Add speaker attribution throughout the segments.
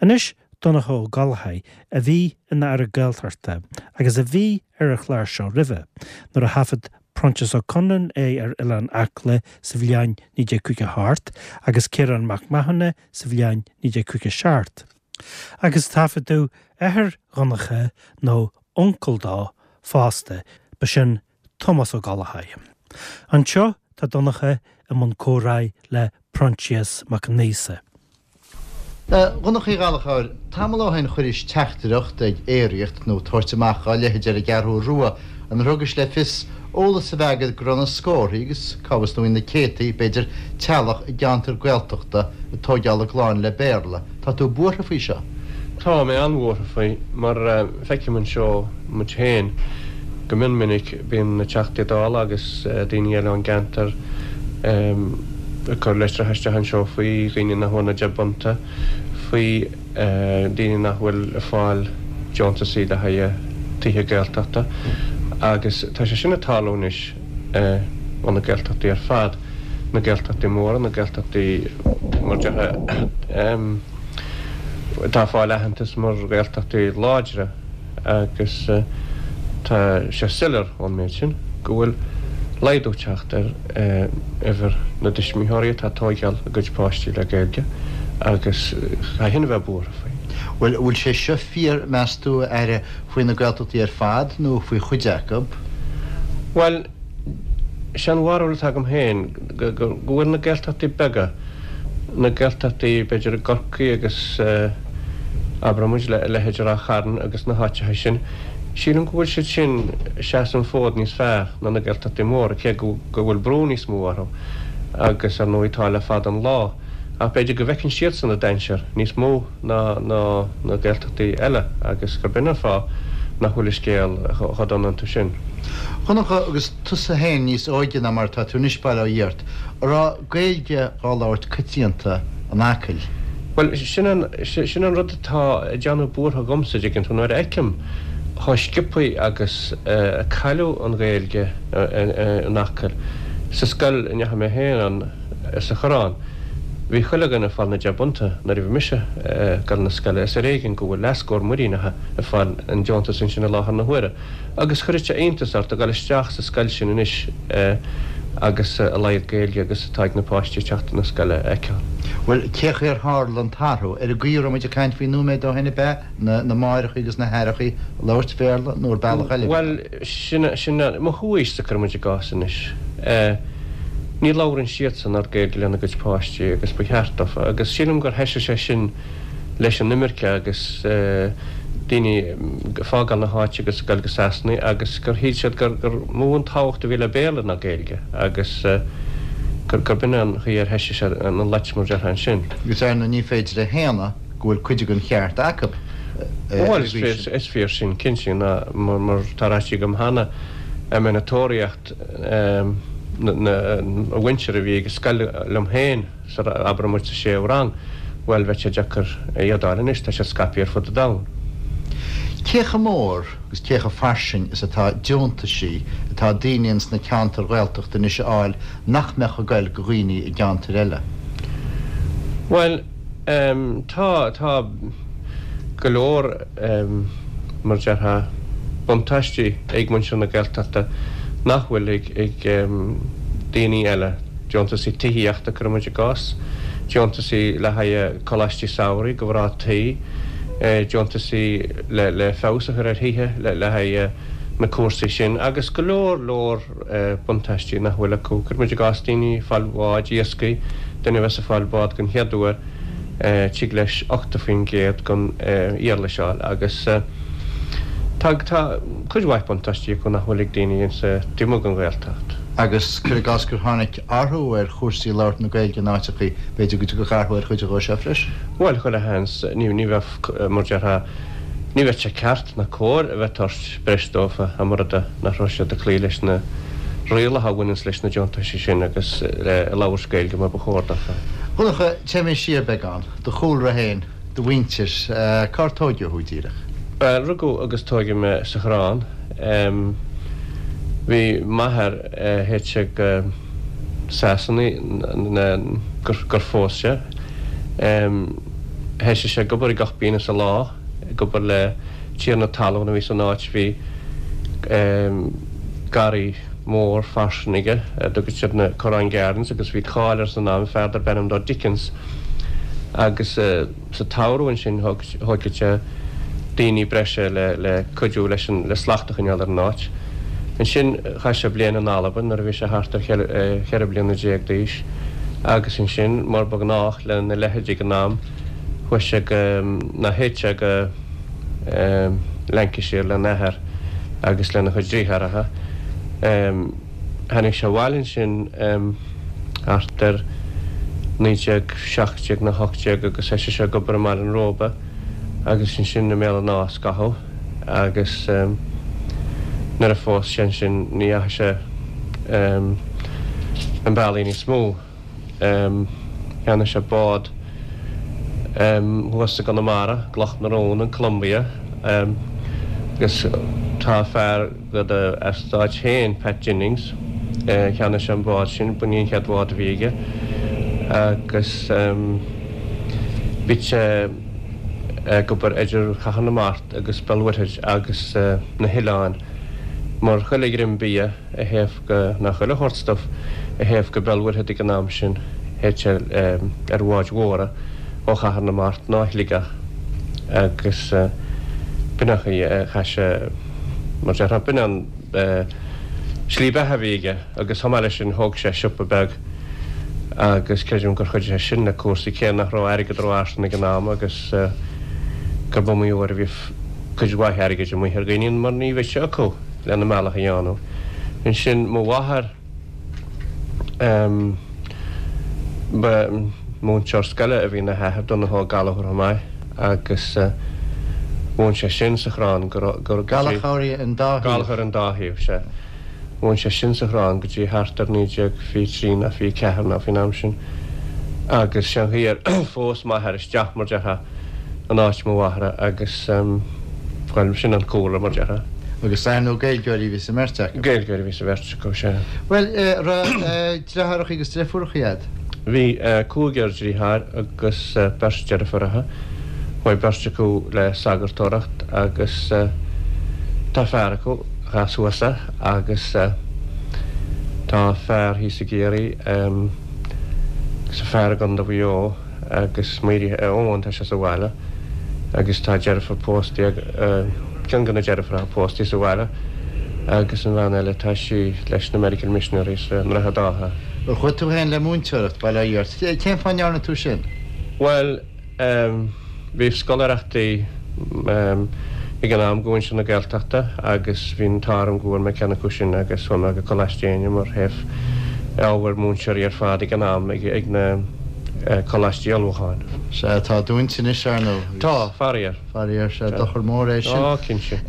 Speaker 1: Anois Donncha Ó Gallchóir, a bhí ina Aire Gaeltachta agus a bhí ar an chlár seo roimhe, nuair a thaifead Proinsias Ó Conluain é ar Oileán Acla sa bhliain 1958 agus Ciarán Mac Mathúna sa bhliain 1957. Agus taifeadadh athair Dhonncha, nó uncail dó, fosta, ba sin Tomás Ó Gallchóir. Anseo tá Donncha i mbun comhrá le Proinsias Mac Aonghusa.
Speaker 2: A Dhonncha Uí Ghallchóir, tamall ó shin chuiris teachtaireacht ag aeraíocht nó tabhairt amach dhá leithéid ar an gCeathrú Rua inar thugais le fios eolas a bheith agat go raibh na scórthaí, agus cá bhfios nó na céadtaí, b'fhéidir, teaghlach i gceantair Gaeltachta ag tóigeáil a gclann le Béarla. Tá tú buartha faoi seo?
Speaker 3: Tá mé an-bhuartha faoi, mar feicim anseo muid féin go mion minic, bíonn na Teachtaí Dála agus daoine eile ón gceantar ag cur litreacha isteach anseo faoi dhaoine nach bhfuair na deich bpunta, faoi daoine nach bhfuil ag fáil deontasaí le haghaidh tithe Gaeltachta agus tá sé sin ag tarlú anois ó na Gaeltachtaí ar fad, na Gaeltachtaí móra, na Gaeltachtaí mar déarfá atá ag fáil aitheantas mar Ghaeltachtaí láidre. agus tá sé soiléir ón méid sin go bhfuil laghdú ag teacht ar uimhir na dtuismitheoirí atá ag tóigeáil a gcuid páistí le Gaeilge agus caithfidh a bheith buartha faoi.
Speaker 2: Bhuel, an bhfuil sé seo fíor, meas tú, a Aire, faoi na Gaeltachtaí ar fad nó faoi chuid acu?
Speaker 3: Bhuel, sé an bharúil atá agam féin go bhfuil na Gaeltachtaí beaga, na Gaeltachtaí b'fhéidir i gCorcaigh agus abraigh muid a leithéid de Ráth Chairn agus na háiteacha sin, sílim go bhfuil siad sin ag seasamh an fód níos fearr ná na Gaeltachtaí móra, cé go bhfuil brú níos mó orthu agus ar ndóigh tá le fada an lá, ach b'fhéidir go bhfeiceann siadsan an dainséar níos mó ná na Gaeltachtaí eile agus gurb in an fáth nach bhfuil an scéal chomh dona iontu sin.
Speaker 2: A Dhonncha, agus tusa féin níos óige ná mar atá tú anois, bail ó Dhia ort, an raibh Gaeilge dhá labhairt coitianta in Acaill?
Speaker 3: Bhuel, sin an, sin an rud atá ag déanamh buartha dhomsa, dtuigeann tú, nuair a fheicim chomh sciobthaí agus a cailleadh an Ghaeilge in Acaill. Sa scoil a ndeachaigh mé féin ann, sa Choireán, bhí chuile dhuine ag fáil na deich bpunta nuair a bhí mise ag dul na scoile. Is ar éigean go bhfuil leathscór muiríneacha ag fáil an deontas ansin i láthair na huaire. Agus chuirfeadh sé iontas ort a dhul isteach sa scoil sin anois agus a laghad Gaeilge agus atá ag na páistí ag teacht chun na scoile a fheiceáil.
Speaker 2: Bhuel, cé chaoi ar tharla an t-athrú? Ar an gcaoi a raibh muid ag caint faoi nóiméad ó shin ab ea? Na máithreacha agus na haithreacha ag labhairt Béarla nó ar bealach eile a bhí ann?
Speaker 3: Bhuel, sin, sin, mo chomhaois-sa, cuireadh muid i gcás anois. Ní labhrann siadsan oiread Gaeilge lena gcuid páistí agus ba cheart dófa agus sílim gur thoisigh sé sin leis an imirce agus daoine ag fágáil na háite agus ag dul go Sasana agus gur shíl siad gur gur mó an tábhacht a bhí le Béarla ná Gaeilge agus gur gurb in an chaoi ar thoisigh sé an loit mar déarfá ansin.
Speaker 2: Agus ar ndóigh ní féidir a shéanadh go bhfuil cuid den cheart acu
Speaker 3: ar an
Speaker 2: gcaoi sin.
Speaker 3: Bhuel is fíor sin cinnte ná mar tá ráite agam cheana a mbeinn ag tóraíocht na mhuintir a bhí ag an scoil liom féin sa, abraigh muid sa séú rang, bhuel bheadh sé deacair iad a fháil anois, tá siad scaipthe ar fud an domhain.
Speaker 2: Cé chomh mór agus cé chomh fairsing is atá deontaisí atá daoine ins na ceantair Ghaeltachta anois a fháil nach mbeadh ag goil go dhaoine i gceantair eile?
Speaker 3: Bhuel, tá, tá go leor, mar déarfá, buntáistí ag muintir na Gaeltachta nach bhfuil ag daoine eile. Deontasaí tithíochta, cuireadh muid i gcás, deontasaí le haghaidh coláistí samhraidh do mhná tí, deontasaí le feabhas a chur ar thithe le haghaidh na cúrsaí sin agus go leor leor buntáistí nach bhfuil acu. Cuireadh muid i gcás daoine ag fáil bháid iascaigh, duine a bheas ag fáil bád den chéad uair, tig leis 80% den éarlais a fháil agus tá tá cuid mhaith buntáistí acu nach bhfuil ag daoine insa taobh amuigh den Ghaeltacht.
Speaker 2: Agus cuir i gcás gur tháinig athrú ar chúrsaí labhairt na Gaeilge in áiteachaí, b'fhéidir go dtiocfadh athrú ar chuid dhó seo freisin.
Speaker 3: Bhuel, chuile sheans, ní ní bheadh, mar déarfá, ní bheadh sé ceart ná cóir a bheith ag tabhairt breis dófa dá mba rud é nach raibh siad ag cloí leis na rialacha a bhaineanns leis na deontaisí sin agus le labhairt Gaeilge mar ba chóir dófa.
Speaker 2: A Dhonncha, téimid siar beagán. Do chúlra féin, do mhuintir, cár tóigeadh thú díreach?
Speaker 3: Bhuel, rugadh agus tóigeadh mé sa Choireán. Bhí m'athair théite go Sasana gur phós sé. Thoisigh sé ag obair i gcupín sa lá, ag obair le tiarna talún a bhí san áit. Bhí garraí mór fairsing aige, a dtugadh siad na Corrán Gardens, agus bhí cáil air san am, fear darb ainm dó Dickens. Agus sa tsamhradh ansin thóigeadh sé daoine breise le cuidiú leis an, le slacht a choinneáil ar an áit. Ansin chaith sé bliain in Albain nuair a bhí sé thart ar cheithre bliana déag d'aois agus ansin, mar ba ghnách lena leithéid ag an am, chuaigh sé go, nó théadh sé go Lancashire lena athair agus lena chuid deartháireacha. Tháinig sé abhaile ansin thart ar 1917 nó 18 agus thoisigh sé ag obair i mBaile an Róba agus ansin i mBéal an Átha scaitheamh agus nuair a phós sé ansin ní dheachaigh sé an bealaí níos mó. Cheannaigh sé bád thuas i gConamara, Cloch na Rón, an Columbia, agus tá fear de do eastáit féin, Pat Jennings, cheannaigh sé an bád sin, b'in í an chéad bhád a bhí aige agus bhí sé ag obair idir Chathair na Mart agus Béal Mhuirthead agus na hoileáin mar chuile dhroim bia. a théadh go, nó chuile shórt stuif a théadh go Béal Mhuirthead ag an am sin, théadh sé ar bháid mhóra ó Chathair na Mart nó Shligeach agus b'in an chaoi a chaith sé, mar déarfá, b'in an slí beatha a bhí aige agus chomh maith leis sin thóg sé siopa beag agus creidim gur chuidigh sé sin le cúrsaí cé nach raibh airgead rófhairsing ag an am agus gurb iomaí uair a bhí cuid mhaith airgid amuigh ar dhaoine mar ní bheadh sé acu. lena mbealach a dhéanamh. Ansin mo mháthair, ba mhúinteoir scoile a bhí ina hathair, Donnchadh Ó Gallchóir chomh maith, agus mhúin sé sin sa Chrann go go dtí.
Speaker 2: Gallchóirí an dá thaobh.
Speaker 3: Gallchóir an dá thaobh, sea. Mhúin sé sin sa Chrann go dtí thart ar 1923 nó 24 nó faoin am sin. Agus sé an chaoi ar phós m'athair isteach, mar déarfá. in áit mo mháthara agus, bhuel, sin an cúlra, mar déarfá.
Speaker 2: Agus ar ndóigh Gaeilgeoirí a bhí sa mbeirt acu.
Speaker 3: Gaeilgeoirí a bhí sa bheirt acu, sea.
Speaker 2: Bhuel, raibh deartháireacha agus deirfiúracha agat?
Speaker 3: Bhí cúigear deartháir agus beirt deirfiúracha. Chuaigh beirt acu le sagartóireacht agus tá fear acu, a chas thuas é, agus tá fear thíos i gCiarraí agus fear i gContae Mhaigh Eo. agus Mary Eoin, tá sé sa bhaile agus tá deirfiúr pósta ag, ceann de na deirfiúracha pósta sa bhaile agus an bhean eile tá sí leis na Medical Missionaries i nDroichead Átha.
Speaker 2: Ar chuaigh tú féin le múinteoireacht, bail ó Dhia ort? Cén fáth a ndearna tú sin?
Speaker 3: Bhuel, bhí scoláireachtaí ag an am go mhuintir na Gaeltachta agus bhí an t-ádh orm go bhfuair mé ceann acu sin agus chuaigh mé go Coláiste Éinne mar théadh ábhair múinteoirí ar fad ag an am ag na coláistí ullmhúcháin.
Speaker 2: Sea, tá dúnta anois, ar ndóigh.
Speaker 3: Tá, faraor.
Speaker 2: Faraor, sea, dochar mór é sin.
Speaker 3: Á, cinnte.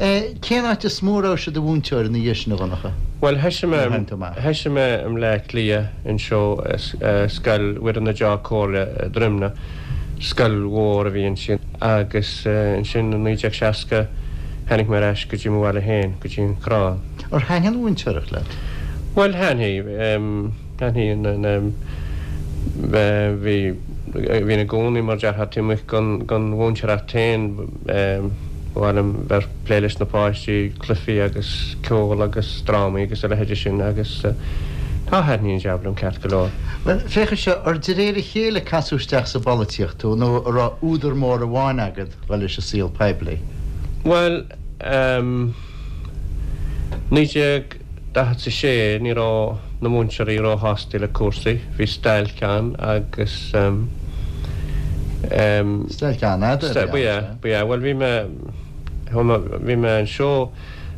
Speaker 2: Cén áit is mó a raibh tú i do mhúinteoir ina dhiaidh sin, a Dhonncha?
Speaker 3: Bhuel, thoisigh mé, thoisigh mé i mBleá Cliath anseo, Scoil Mhuire na Deá-Comhairle, Droimne. Scoil mhór a bhí ansin agus ansin i 1960 tháinig mé ar ais go dtí mo bhaile féin, go dtí an Crann.
Speaker 2: Ar thaitnigh an mhúinteoireacht leat?
Speaker 3: Bhuel, thaitnigh. Thaitnigh. Bhí, bhínn i gcónaí mar déarfá taobh amuigh den mhúinteoireacht féin. Ba mhaith liom bheith ag plé leis na páistí, cluichí agus ceol agus drámaí agus a leithéide sin agus tá, thaitnigh an jab liom ceart go leor.
Speaker 2: Bhuel, féach anseo, ar de réir a chéile a casadh isteach sa bpolaitíocht tú nó an raibh údar mór amháin agat dhul leis an saol poiblí?
Speaker 3: Bhuel, ehm, 1946 ní raibh na múinteoirí róshásta le cúrsaí, bhí stailc ann agus ehm,
Speaker 2: ehm. Stailc an-fhada
Speaker 3: a bhí ann, sea. Ba ea, ba ea. Bhuel, bhí mé, bhí mé anseo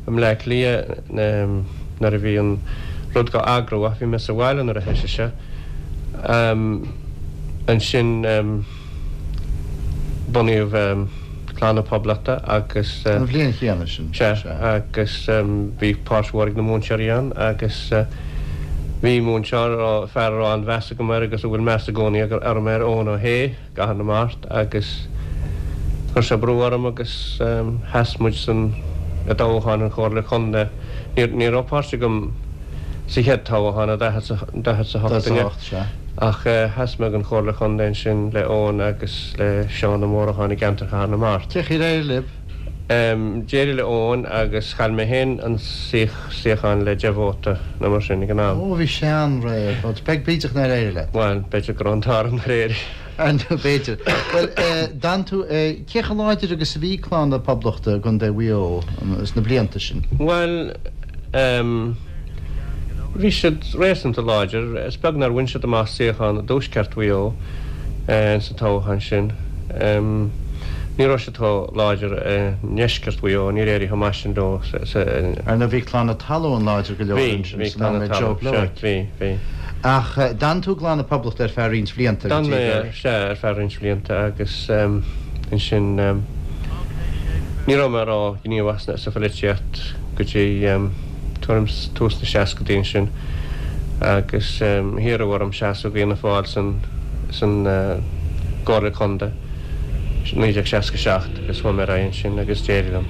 Speaker 3: i mBleá Cliath nuair a bhí an rud dhá eagrú ach bhí mé sa bhaile nuair a thoisigh sé. Ansin bunaíodh Clann na Poblachta agus.
Speaker 2: An bhliain chéanna sin.
Speaker 3: Sea, agus bhí páirt mhór ag na múinteoirí ann agus bhí múinteoir, fear a raibh an-mheas agam air agus a bhfuil meas i gcónaí orm air, Eoin Ó hAodha. gCathair na Mart agus chuir sé brú orm agus sheas muid san i dtoghchán an Chomhairle Contae. Ní raibh páirt agam sa chéad toghchán i 48 an ea? Ach sheas mé don Chomhairle Chontae ansin le Eoin agus le Seán Ó Móracháin i gceantar Chathair na Mart.
Speaker 2: Cé chaoi ar éirigh libh?
Speaker 3: D'éirigh le Eoin agus chaill mé féin an suíochán le 10 vóta nó mar sin ag an am.
Speaker 2: Ó, bhí sé an-réidh. Bhuel, b'fhéidir nár éirigh leat.
Speaker 3: Bhuel, b'fhéidir go raibh an t-ádh orm nár éirigh.
Speaker 2: Ar ndóigh, b'fhéidir. Bhuel, d'fhan tú, cé chomh láidir agus a bhí Clann na Poblachta i gContae Mhaigh Eo sna blianta sin?
Speaker 3: Bhuel, bhí siad réasúnta láidir. Is beag nár bhain siad amach suíochán i dtuaisceart Mhaigh Eo sa toghchán sin. Ní raibh siad chomh láidir i ndeisceart Mhaigh Eo, níor éirigh chomh maith sin leo sa.
Speaker 2: Ar ndóigh bhí Clann na Talmhan láidir go leor ansin san am le Joe Blowick.
Speaker 3: Bhí, bhí.
Speaker 2: Ach d'fhan tú i gClann na Poblachta ar feadh roinnt bhlianta
Speaker 3: go dtí gur. D'fhan mé, sea, ar feadh roinnt bhlianta agus ansin ní raibh mé ró-ghníomhach sa pholaitíocht go dtí tuairim 's tús na seascadaí ansin agus hiarradh orm seasamh d'Fhianna Fáil san san gComhairle Contae. 1967 agus chuaigh mé ar aghaidh ansin agus d'éirigh liom.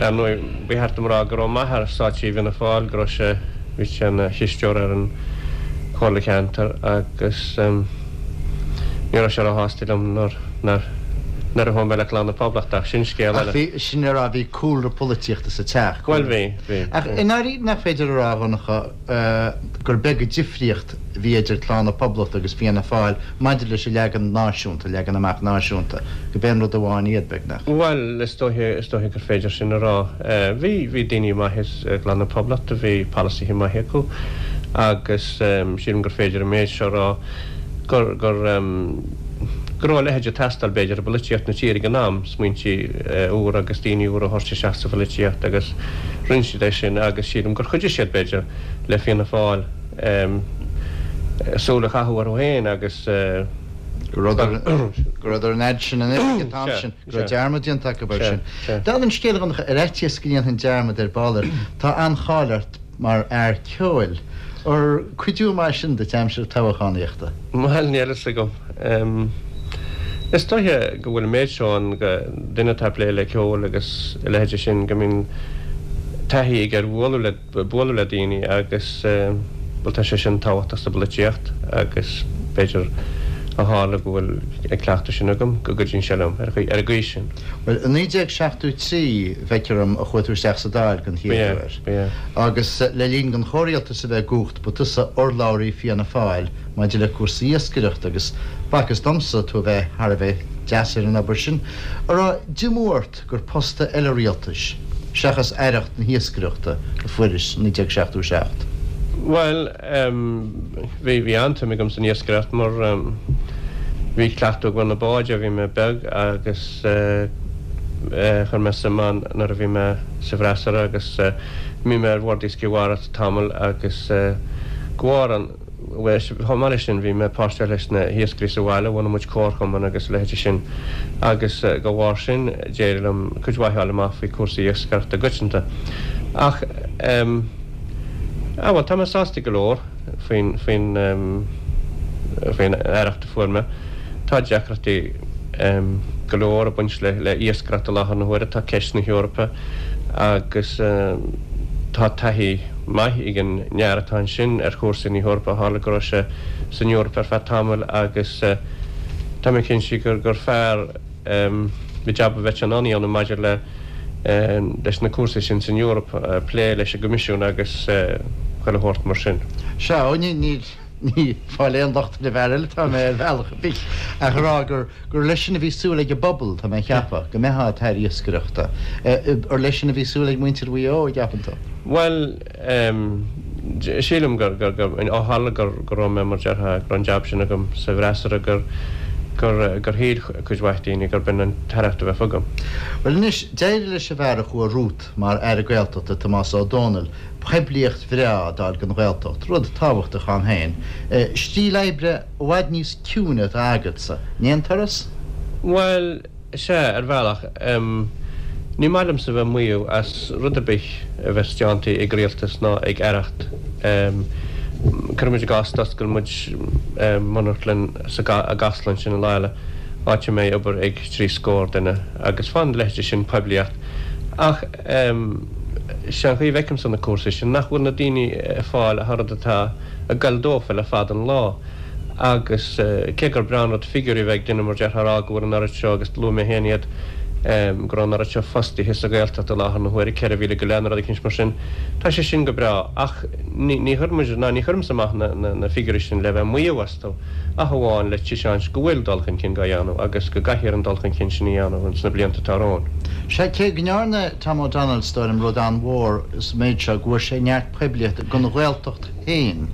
Speaker 3: Ar ndóigh, ba cheart dom a rá go raibh m'athair sáite i bhFianna Fáil, go raibh sé, bhí sé ina chisteoir ar an Chomhairle Ceantair agus ní raibh sé róshásta liom nuair, nuair, nuair a chuaigh mé le Clann na Poblachta ach sin scéal
Speaker 2: eile. Ach bhí, sin le rá, bhí cúlra polaitíochta sa teach.
Speaker 3: Bhuel bhí, bhí.
Speaker 2: Ach i ndáiríre nach féidir a rá, a Dhonncha, gur beag an difríocht a bhí idir Clann na Poblachta agus Fianna Fáil maidir leis an leagan náisiúnta, leagan amach náisiúnta, gurb aon rud amháin iad, beagnach.
Speaker 3: Bhuel, is dóiche, is dóiche gur féidir sin a rá. Bhí, bhí daoine maithe i gClann na Poblachta, bhí polasaithe maithe acu agus sílim gur féidir an méid seo a rá, gur, gur, go raibh a leithéid ag teastáil, b'fhéidir, i bpolaitíocht na tíre ag an am, smaointí úra agus daoine úra a thabhairt isteach sa pholaitíocht agus rinne siad é sin agus sílim gur chuidigh siad, b'fhéidir, le Fianna Fáil súil a chaitheamh orthu féin agus.
Speaker 2: Go rabhadar an fhad sin in oifig an t-am sin, go raibh dearmad déanta acu air sin. Dála an scéil, a Dhonncha, ar fhaitíos go ndéanfainn dearmad ar ball air, tá an-cháil ort mar fhear ceoil. Ar cuidiú maith sin duit aimsir toghchánaíochta?
Speaker 3: Bhuel, níl fhios agam. Is dóiche go bhfuil an méid seo ann go duine atá ag plé le ceol agus a leithéide sin go mbíonn taithí aige ar bhualadh le bualadh le daoine agus, bhuel, tá sé sin tábhachtach sa bpolaitíocht agus b'fhéidir ó tharla go bhfuil an cleachtadh sin agam go gcuidíonn sé liom ar an gcaoi sin.
Speaker 2: Bhuel, i 1973, feictear dom, a chuaigh tú isteach sa Dáil den chéad uair.
Speaker 3: Ba ea.
Speaker 2: Agus le linn don chomhrialtas a bheith i gcumhacht, ba tusa urlabhraí Fianna Fáil maidir le cúrsaí iascaireachta agus b'fhacthas domsa tú a bheith thar a bheith deas ar an obair sin. An raibh diomú ort gur post eile rialtais, seachas aireacht na hiascaireachta, a fuairis i 1977?
Speaker 3: Bhuel, bhí, bhí an-tsuim agam san iascaireacht mar bhí cleachtadh agam ar na báid ó bhí mé beag agus chuir mé suim ann nuair a bhí mé sa bhfreasúra agus bhí mé ar Bhord Iascaigh Mhara tamall agus de bharr an Bhuel, chomh maith leis sin, bhí mé páirteach leis na hiascairí sa bhaile, bhunaigh muid comharchumann agus a leithéide sin agus de bharr sin d'éirigh liom cuid mhaith a fháil amach faoi cúrsaí iascaireachta i gcoitianta. Ach, em, ah bhuel, tá mé sásta go leor faoin, faoin, em, faoin aireacht a fuair mé. Tá deacrachtaí, em, go leor ag baint le, le iascaireacht i láthair na huaire, tá ceist na hEorpa agus, em, tá taithí, maith ag an fhear atá ansin ar chúrsaí na hEorpa, tharla go raibh sé san Eoraip ar feadh tamaill agus tá mé cinnte gur gur fear an jab a bheadh sé in ann a dhéanamh maidir le leis na cúrsaí sin san Eoraip, plé leis an gCoimisiún agus chuile shórt mar sin.
Speaker 2: Sea, ó ní ní ní ag fáil aon locht ar an bhfear eile atá mé ar bhealach ar bith ach a rá gur gur leis sin a bhí súil ag an bpobal, tá mé a cheapadh, go mbeifeá i t'aire iascaireachta. Ar leis sin a bhí súil ag muintir Mhaigh Eo, an gceapann tú?
Speaker 3: Bhuel, sílim gur, gur, gur, ó tharla gur, go raibh mé, mar déarfá, go raibh an jab sin agam sa bhfreasúra, gur, gur, gur shíl cuid mhaith daoine gurb in an t-aireacht a bheadh agam.
Speaker 2: Bhuel anois, d'éirigh leis an bhfear a chuaigh romhat mar Aire Gaeltachta, Tomás Ó Dónaill, poiblíocht bhreá a d'fháil don Ghaeltacht, rud tábhachtach ann féin. Stíl oibre i bhfad níos ciúine atá agatsa, an aon turas?
Speaker 3: Bhuel, sea, ar bhealach. Ní maith liomsa bheith ag maíomh as rud ar bith a bheas déanta ag rialtas ná ag aireacht. Cuirimid i gcás d'oscail muid monarchlann sa i gCasla ansin i Oirialla, áit a mbeidh obair ag trí scór duine, agus faigheann a leithéide sin poiblíocht. Ach. Sé an chaoi a bhfeicimse na cúrsaí sin, nach bhfuil na daoine ag fáil ach an rud atá ag goil dófa le fada an lá. Agus cé gur breá an rud figiúirí a bheith ag duine mar déarfá a rá go bhfuil an oiread seo, agus luaigh mé féin iad, go raibh an oiread seo fostaithe sa Ghaeltacht i láthair na huaire, 4,000 go leith nó rud eicínt mar sin, tá sé sin go breá ach ní chuireann muid, ná ní chuirimse amach na figiúirí sin le bheith ag maíomh astu ach amháin le taispeáint go bhfuil dul chun cinn dhá dhéanamh agus go gcaithfear an dul chun cinn sin a dhéanamh ins na blianta atá romhainn.
Speaker 2: Sea, cé go ndearna Tom O'Donnell, is dóigh liom, rud an-mhór sa méid seo, go bhfuair sé neart poiblíochta don Ghaeltacht féin.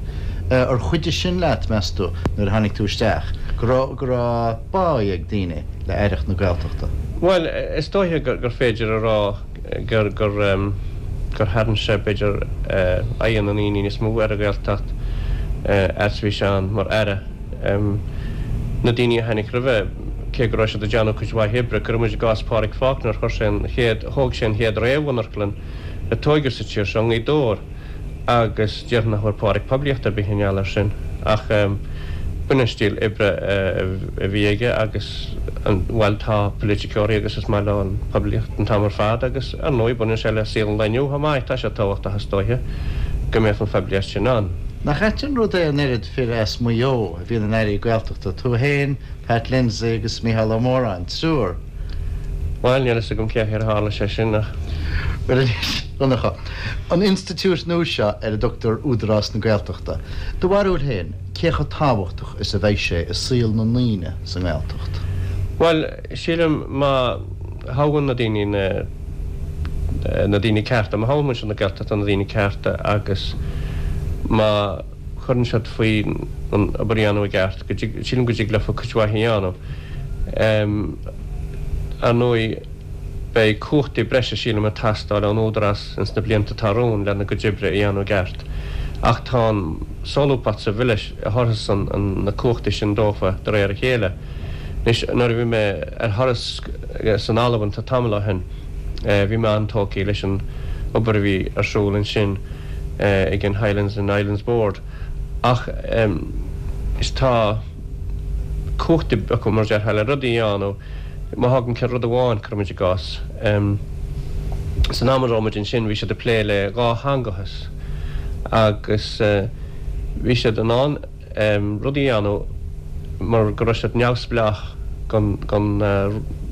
Speaker 2: Ar chuidigh sin leat, meas tú, nuair a tháinig tú isteach, go raibh, go raibh báidh ag daoine le Aireacht na Gaeltachta?
Speaker 3: Bhuel, is dóiche gur féidir a rá gur, gur, gur tharraing sé, b'fhéidir, aghaidh na ndaoine níos mó ar an Ghaeltacht fhad is a bhí sé ann mar Aire. Na daoine a tháinig roimhe, cé go raibh siad ag déanamh cuid mhaith oibre, cuireadh muid i gcás Pádraig Faulkner, chuir sé an chéad, thóg sé an chéad réamh-mhonarchlann a tóigeadh sa tír seo i nGaoth Dobhair. agus déarfainn nach bhfuair Pádraig poiblíocht ar bith i ngeall air sin ach b'in an stíl oibre a bhí aige agus bhuel tá poiliticeoirí agus is maith leo an poiblíocht an t-am ar fad agus ar ndóigh baineann sé le saol an lae inniu chomh maith, tá sé tábhachtach is dóiche go mbeadh an phoiblíocht sin ann.
Speaker 2: Nach ait an rud é an oiread fir as Maigh Eo a bhíonn ina n-airí Gaeltachta, tú féin, Pat Lindsay agus Mícheál Ó Móráin, triúr.
Speaker 3: Bhuel, níl fhios agam cén chaoi ar tharla sé sin ach.
Speaker 2: Bhuel anois, a Dhonncha, an institiúid nua seo ar a dtugtar Údarás na Gaeltachta, do bharúil féin, cé chomh tábhachtach is a bheidh sé i saol na ndaoine sa nGaeltacht?
Speaker 3: Bhuel, sílim má thoghann na daoine na na daoine cearta, má thoghann muintir na Gaeltachta na daoine cearta agus má chuireann siad faoi an obair a dhéanamh i gceart, go dtig, sílim go dtig leofa cuid mhaith a dhéanamh. Ar ndóigh, beidh cumhachtaí breise, sílim, ag teastáil ón Údarás ins na blianta atá romhainn lena gcuid oibre a dhéanamh i gceart. Ach tá an solúbthacht sa Bhille a thabharfas na cumhachtaí sin dófa de réir a chéile. Anois, nuair a bhí mé ar thuras san Albain tá tamall ó shin, bhí mé an-tógtha leis an obair a bhí ar siúl ansin ag an Highlands and Islands Board. Ach is tá. cumhachtaí acu, mar a déarfá, le rudaí a dhéanamh. Má thágann ceann rud amháin, cuirimid i gcás, san am a raibh muid ansin bhí siad ag plé le dhátheangachas agus bhí siad in ann rudaí a dhéanamh mar go raibh siad neamhspleách gon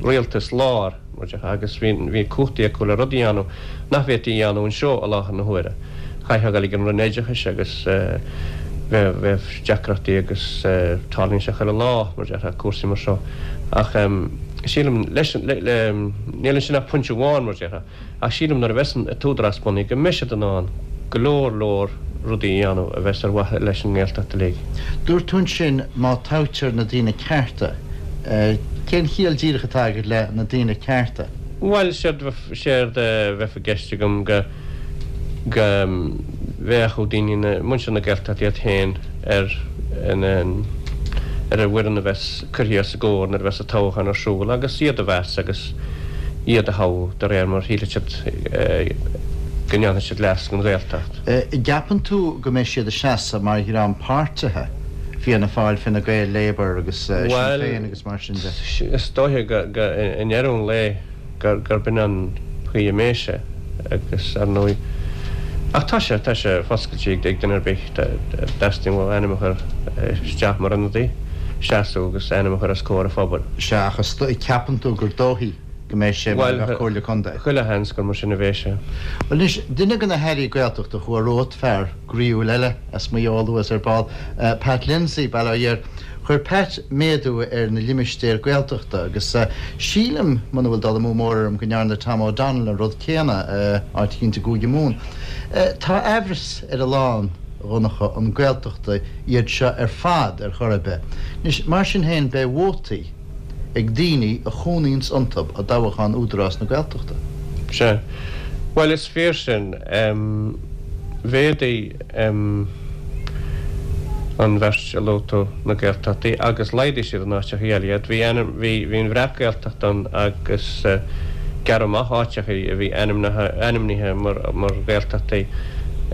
Speaker 3: rialtas láir. Agus bhí cumhachtaí acu le rudaí a dhéanamh nach bhféadfaí a dhéanamh anseo i láthair na huaire. Chaithfeá a dhul ag an Roinn Oideachais agus bheadh deacrachtaí agus tarlaíonn sé chuile lá, mar a déarfá, cúrsaí mar seo. Ach sílim, leis, níl ansin ach pointe amháin, mar a déarfá. Ach sílim nuair a bheas an tÚdarás bunaithe go mbeidh siad in ann go leor leor rudaí a dhéanamh a bheas ar mhaithe leis an nGaeltacht uilig.
Speaker 2: Dúirt tú ansin má toghtar na daoine cearta. Cén chiall díreach atá agat le na daoine cearta?
Speaker 3: Bhuel, séard a bheadh i gceist agam go go bhféachfadh daoine na, muintir na Gaeltachta iad féin ar an ar an bhfoireann a bheas curtha os a gcomhair nuair a bheas an toghchán ar siúl agus iad a mheas agus iad a thoghadh de réir mar a shílfidh siad go ndéanfaidh siad leas don Ghaeltacht.
Speaker 2: An gceapann tú go mbeidh siad ag seasamh mar dhream páirtithe, Fianna Fáil, Fine Gael, Labour agus Sinn Féin agus mar sin de?
Speaker 3: Bhuel, is dóiche go i ndeireadh an lae gurb in an chaoi a mbeidh sé agus ar ndóigh ach tá sé, tá sé foscailte ag duine ar bith dá dteastaíonn uathu ainm a chur isteach mar ionadaí, seasamh agus ainm a chur os comhair an phobail.
Speaker 2: Sea, ach ceapann tú gur dóichí go mbeidh sé mar a bheadh Comhairle Contae?
Speaker 3: Bhuel, chuile sheans gur mar sin a bheidh sé.
Speaker 2: Bhuel anois, duine de na hAirí Gaeltachta a chuaigh romhat, fear groíúil eile as Maigh Eo a luas ar ball, Pat Lindsay, bail ó Dhia air. Chuir Pat méadú ar na limistéir Gaeltachta agus sílim, muna bhfuil dul amú mór orm, go ndearna Tom O'Donnell an rud céanna, áit eicínt i gCúige Mumhan. Tá aimhreas ar a lán, a Dhonncha, an Gaeltachtaí iad seo ar fad ar chor ar bith. Anois, mar sin féin, beidh vótaí ag daoine a chónaíonns iontub i dtoghachán Údarás na Gaeltachta.
Speaker 3: Sea. Bhuel, is fíor sin. Mhéadaigh an bheirt a luaigh tú na Gaeltachtaí agus laghdaigh siad in áiteachaí eile iad. Bhí ainm, bhí, bhí an Bhreac-Ghaeltacht ann agus gearradh amach áiteachaí a bhí ainmnithe, ainmnithe mar, mar Ghaeltachtaí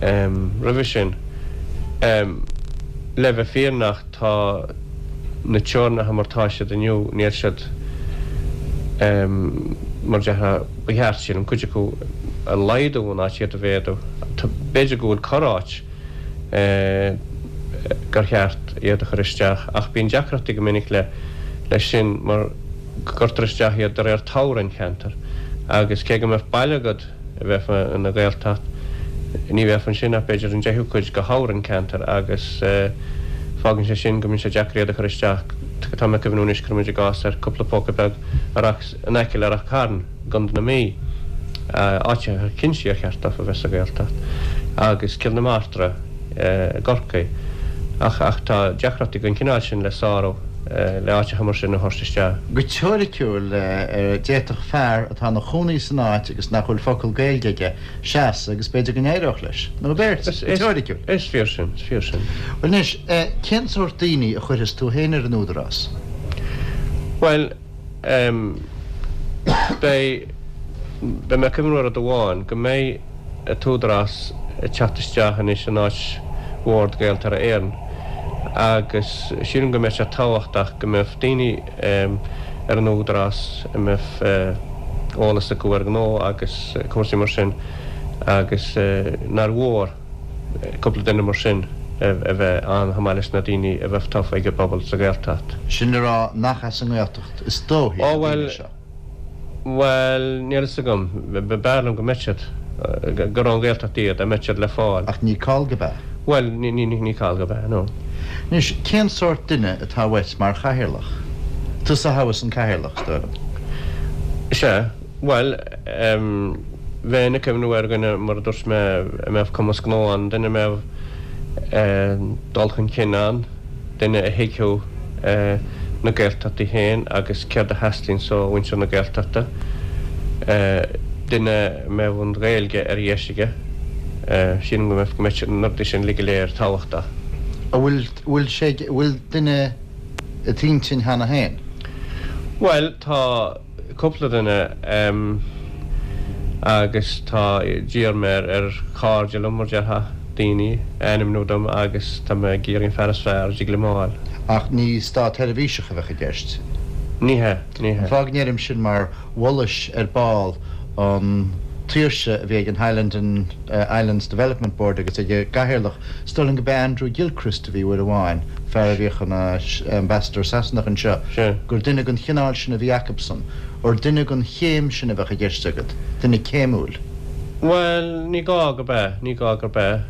Speaker 3: roimhe sin. Le bheith fírinneach, tá na teorainneacha mar tá siad inniu, níl siad mar a déarfá, ba cheart, sílim, cuid acu a laghdú in áit iad a mhéadú. B'fhéidir go bhfuil corr-áit gur cheart. iad iad a chur isteach ach bíonn deacrachtaí go minic le leis sin mar go gcuirtear isteach iad de réir toghroinn cheantair agus cé go mbeadh baile agat a bheadh ina Ghaeltacht ní bheadh ansin ach b'fhéidir an deichiú cuid de thoghroinn ceantair agus fágann sé sin go mbíonn sé deacair iad a chur isteach. Tá mé ag cuimhniú anois cuirfidh muid i gcás ar cúpla póca beag in aice le Rath Cairn i gContae na Mí, áit ar cinnte ar cheart dófa a bheith sa Ghaeltacht, agus Cill na Martra i gCorcaigh. Ach ach tá deacrachtaí den chineál sin le sárú le áiteacha mar sin a thabhairt isteach.
Speaker 2: Go teoiriciúil, d'fhéadfadh fear atá ina chónaí san áit agus nach bhfuil focal Gaeilge aige seasamh agus b'fhéidir go n-éireodh leis. Nó beirt, go teoiriciúil.
Speaker 3: Is fíor sin, is fíor sin.
Speaker 2: Bhuel anois, cén sórt daoine a chuirfeas tú féin ar an Údarás?
Speaker 3: Bhuel, Beidh, beidh mé ag cuimhniú ar rud amháin, go mbeidh an tÚdarás ag teacht isteach anois in áit Bhord Gaeltarra Éireann agus sílim go mbeidh sé tábhachtach go mbeadh daoine ar an Údarás a mbeadh eolas acu ar ghnó agus cúrsaí mar sin agus nár mhór cúpla duine mar sin a bheith ann chomh maith leis na daoine a bheadh tofa ag an bpobal sa Ghaeltacht.
Speaker 2: Sin le rá nach as an nGaeltacht is dóichí
Speaker 3: na daoine seo. Bhuel, níl fhios agam. B'fhearr liom go mbeadh siad, gur ón Ghaeltacht iad, dá mbeadh siad le fáil.
Speaker 2: Ach ní call gurb ea?
Speaker 3: Bhuel, ní call gurb ea, no.
Speaker 2: Anois, cén sórt duine atá uait mar chathaoirleach? Tusa a thoghfas an cathaoirleach, is dóigh liom.
Speaker 3: Sea. Bhuel, bheinn ag cuimhniú ar dhuine, mar a dúirt mé, a mbeadh cumas gnó ann, duine a mbeadh dul chun cinn ann, duine a thuigfeadh na Gaeltachtaí féin agus céard a theastaíonns ó mhuintir na Gaeltachta, duine a mbeadh an Ghaeilge ar dheis aige. Sílim go mbeadh na rudaí sin uilig go léir tábhachtach.
Speaker 2: An bhfuil, bhfuil sé, bhfuil duine i d'intinn cheana féin?
Speaker 3: Bhuel, tá. cúpla duine agus tá, d'iarr mé ar chairde liom, mar déarfá, daoine a ainmniú dom agus tá mé ag iarraidh an fear is fearr a dtig liom a fháil.
Speaker 2: Ach ní státsheirbhíseach a bheadh i gceist.
Speaker 3: Ní hea, ní hea.
Speaker 2: An fáth go ndeirim sin mar mholais ar ball an tsaoirse a bhí ag an Highland and Islands Development Board agus ag a gcathaoirleach, is dóigh liom go b'é Andrew Gilchrist a bhí uair amháin, fear a bhíodh ina Ambassador Sasanach anseo, gur duine den chineál sin a bhí acubsan, gur duine den chéim sin a bheadh i gceist agat, duine céimiúil.
Speaker 3: Bhuel, ní gá gurb ea, ní gá gurb ea.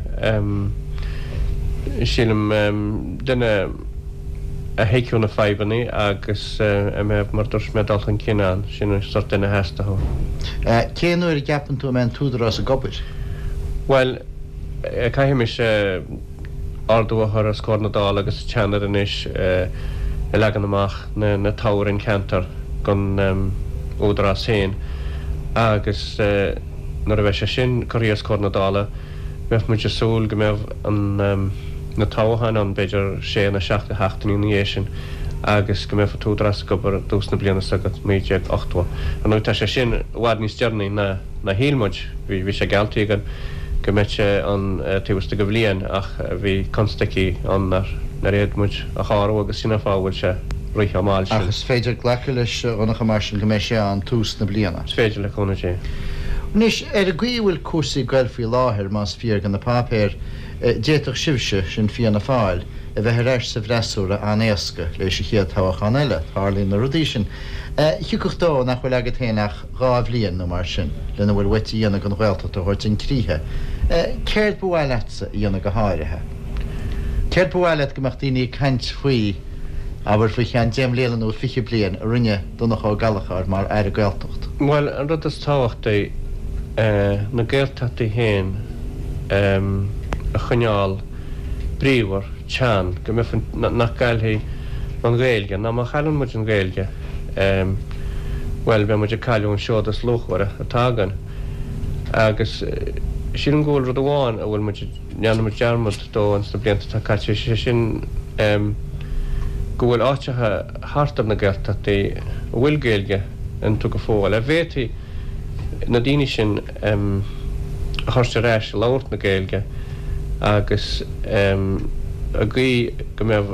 Speaker 3: Sílim, duine a thuigfeadh na fadhbanna agus a mbeadh, mar a dúirt mé, dul chun cinn ann, sin an sórt duine a theastódh.
Speaker 2: Cén uair a gceapann tú a mbeidh an tÚdarás ag obair?
Speaker 3: Bhuel, Caithfidh mise ordú a chur os comhair na Dála agus an tSeanaid anois ag leagan amach na toghroinn ceantar don Údarás féin agus nuair a bheidh sé sin curtha os comhair na Dála bheadh muid ag súil go mbeadh na toghcháin ann b'fhéidir sé nó seacht de sheachtainí ina dhiaidh sin agus go mbeadh an tÚdarás ag obair i dtús na bliana seo chugainn, 1980. Ar ndóigh tá sé sin i bhfad níos deireanaí ná. ná shíl muid. Bhí sé geallta againn go mbeadh sé ann taobh istigh de bhliain ach bhí constaicí ann nár fhéad muid a shárú agus sin an fáth a bhfuil sé rite chomh mall sin.
Speaker 2: Ach is féidir glacadh leis, a Dhonncha, mar sin, go mbeidh sé ann tús na bliana.
Speaker 3: Is féidir, le cúnamh Dé.
Speaker 2: Anois, ar an gcaoi a bhfuil cúrsaí ag goil faoi láthair, más fíor do na páipéir, d'fhéadfadh sibhse, sin Fianna Fáil, a bheith ar ais sa bhfreasúra an-éasca leis an chéad toghchán eile. Tarlaíonn na rudaí sin. Thiocfadh dó nach bhfuil agat féin ach 2 bhliain nó mar sin lena bhfuil uait a dhéanamh don Ghaeltacht a thabhairt chun críche. Céard ba mhaith leatsa a dhéanamh go háirithe? Céard ba mhaith leat go mbeadh daoine ag caint faoi, abair, faoi cheann 10 mbliana nó 20 bliain a rinne Donncha Ó Gallchóir mar Aire Gaeltacht?
Speaker 3: Bhuel, an rud is tábhachtaí, na Gaeltachtaí féin a choinneáil bríomhar. teann, go mbeadh an, nach gcaillfidh an Ghaeilge, nó má chailleann muid an Ghaeilge, bhuel, beidh muid ag cailleadh an seod is luachmhaire atá againn. Agus sílim go bhfuil rud amháin a bhfuil muid, ndearna muid dearmad dó ins na blianta atá caite, sé sin go bhfuil áiteacha thart ar na Gaeltachtaí a bhfuil Gaeilge iontu go fóill, a bhféadfaí na daoine sin a thabhairt ar ais ag labhairt na Gaeilge agus i gcaoi go mbeadh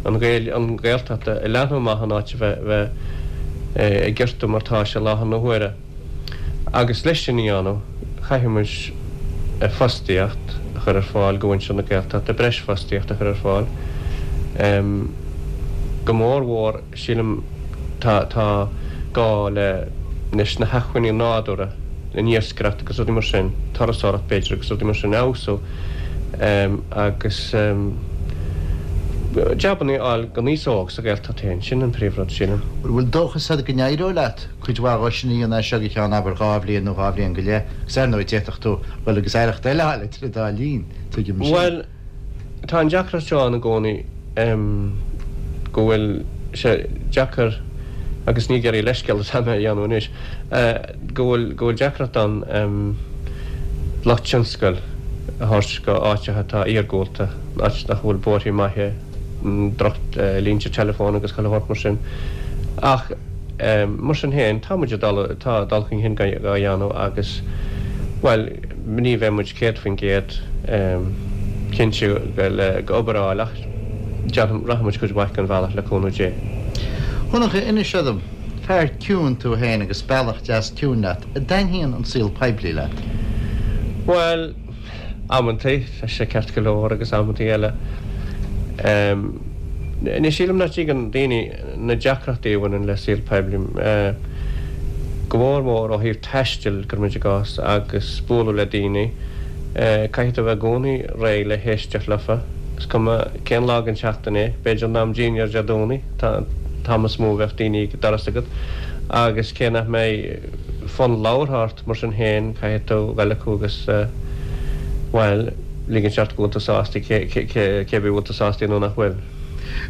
Speaker 3: an Ghaeilge, an Ghaeltacht ag leathnú amach in áit a bheith ag giortú mar tá sé i láthair na huaire. Agus leis sin a dhéanamh, chaithfidh muid fostaíocht a chur ar fáil do mhuintir na Gaeltachta, breis fostaíocht a chur ar fáil. Go mór mhór, sílim, tá tá gá le leis na hacmhainní nádúrtha, an iascaireacht agus rudaí mar sin, turasóireacht b'fhéidir agus rudaí mar sin a fheabhsú agus jabanna a fháil don aos óg sa Ghaeltacht féin, sin an príomhrud, sílim.
Speaker 2: An bhfuil dóchas agat go n-éireoidh leat cuid mhaith dhó sin a dhéanamh as seo go ceann, abair, dhá bhliain nó dhá bhliain go leith? Agus ar ndóigh d'fhéadfadh tú dhul agus aireacht eile a fháil idir an dá linn, tuigim sin.
Speaker 3: Bhuel, Tá an deacracht seo ann i gcónaí go bhfuil sé deacair, agus ní ag iarraidh leithscéal atá mé a dhéanamh anois, go bhfuil go bhfuil deacracht ann lucht tionscail a thabhairt go áiteacha atá iargúlta, áit nach bhfuil bóithre maithe, droch línte teileafóin agus chuile shórt mar sin. Ach mar sin féin, tá muid ag dul, tá dul chun cinn á dhéanamh agus, bhuel, Ní bheidh muid 100% cinnte le go obair a fháil ach déarfainn rachaidh muid cuid mhaith den bhealach le cúnamh Dé.
Speaker 2: A Dhonncha, inis dom, fear ciúin tú féin agus bealach deas ciúin leat, an dtaitníonn an saol poiblí leat?
Speaker 3: Bhuel, amantaí, tá sé ceart go leor agus amantaí eile, ní sílim nach dtuigeann daoine na deacrachtaí a bhaineann le saol poiblí, go mór mór ó thaobh taistil, cuirimid i gcás, agus bualadh le daoine. Caithfidh tú a bheith i gcónaí réidh le héisteacht leofa, is cuma cén lá den tseachtain é, b'fhéidir in am dinnéir Dé Domhnaigh, an t-am is mó a bheadh daoine ag an doras agat, agus cé nach mbeidh fonn labhartha ort, mar sin féin, caithfidh tú dhul acu agus, bhuel, ligint ort go bhfuil tú sásta, cé bith bhfuil tú sásta nó nach bhfuil.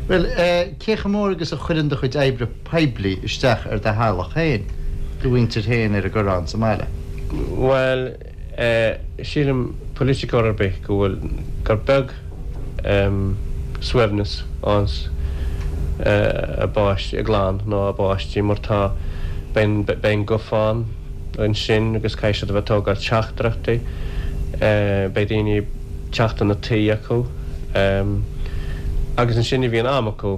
Speaker 2: Bhuel, cé chomh mór agus a chuireann do chuid oibre poiblí isteach ar do theaghlach féin, do mhuintir féin ar an gCoireán sa mbaile?
Speaker 3: Bhuel, sílim, politiceoir ar bith, go bhfuil, gur beag suaimhneas anns a bpáistí, a gclann nó a bpáistí mar tá, beidh an guthán ansin agus caithfidh siad a bheith ag tógáil teachtaireachtaí, beidh daoine ag teacht chun an tí acu agus ansin ní bhíonn am acu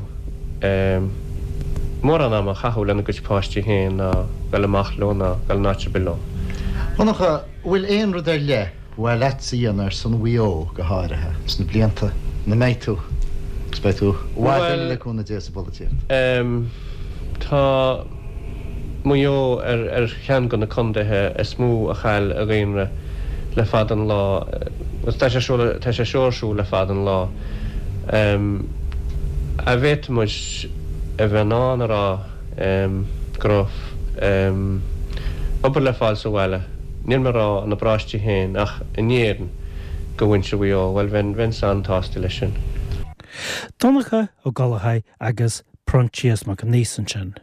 Speaker 3: mórán ama a chaitheamh lena gcuid páistí féin ná dul amach leo ná dul in áit ar bith leo.
Speaker 2: A Dhonncha, an bhfuil aon rud ar leith ba mhaith leatsa a dhéanamh ar son Mhaigh Eo go háirithe sna blianta ina mbeidh tú, agus beidh tú i bhfad eile le cúnamh Dé sa bpolaitíocht?
Speaker 3: Tá Maigh Eo ar cheann de na contaetha is mó a chaill a dhaonra le fada an lá, agus tá sé seo tá sé seo ar siúl le fada an lá. An bhféadfadh muid a bheith in ann a rá go raibh obair le fáil sa bhaile, níl mé ag rá ina bparóiste féin ach in Éirinn do mhuintir Mhaigh Eo, bhuel bheinn bheinnse an-tsásta leis sin.
Speaker 1: Donncha Ó Gallchóir agus Proinsias Mac Aonghusa ansin.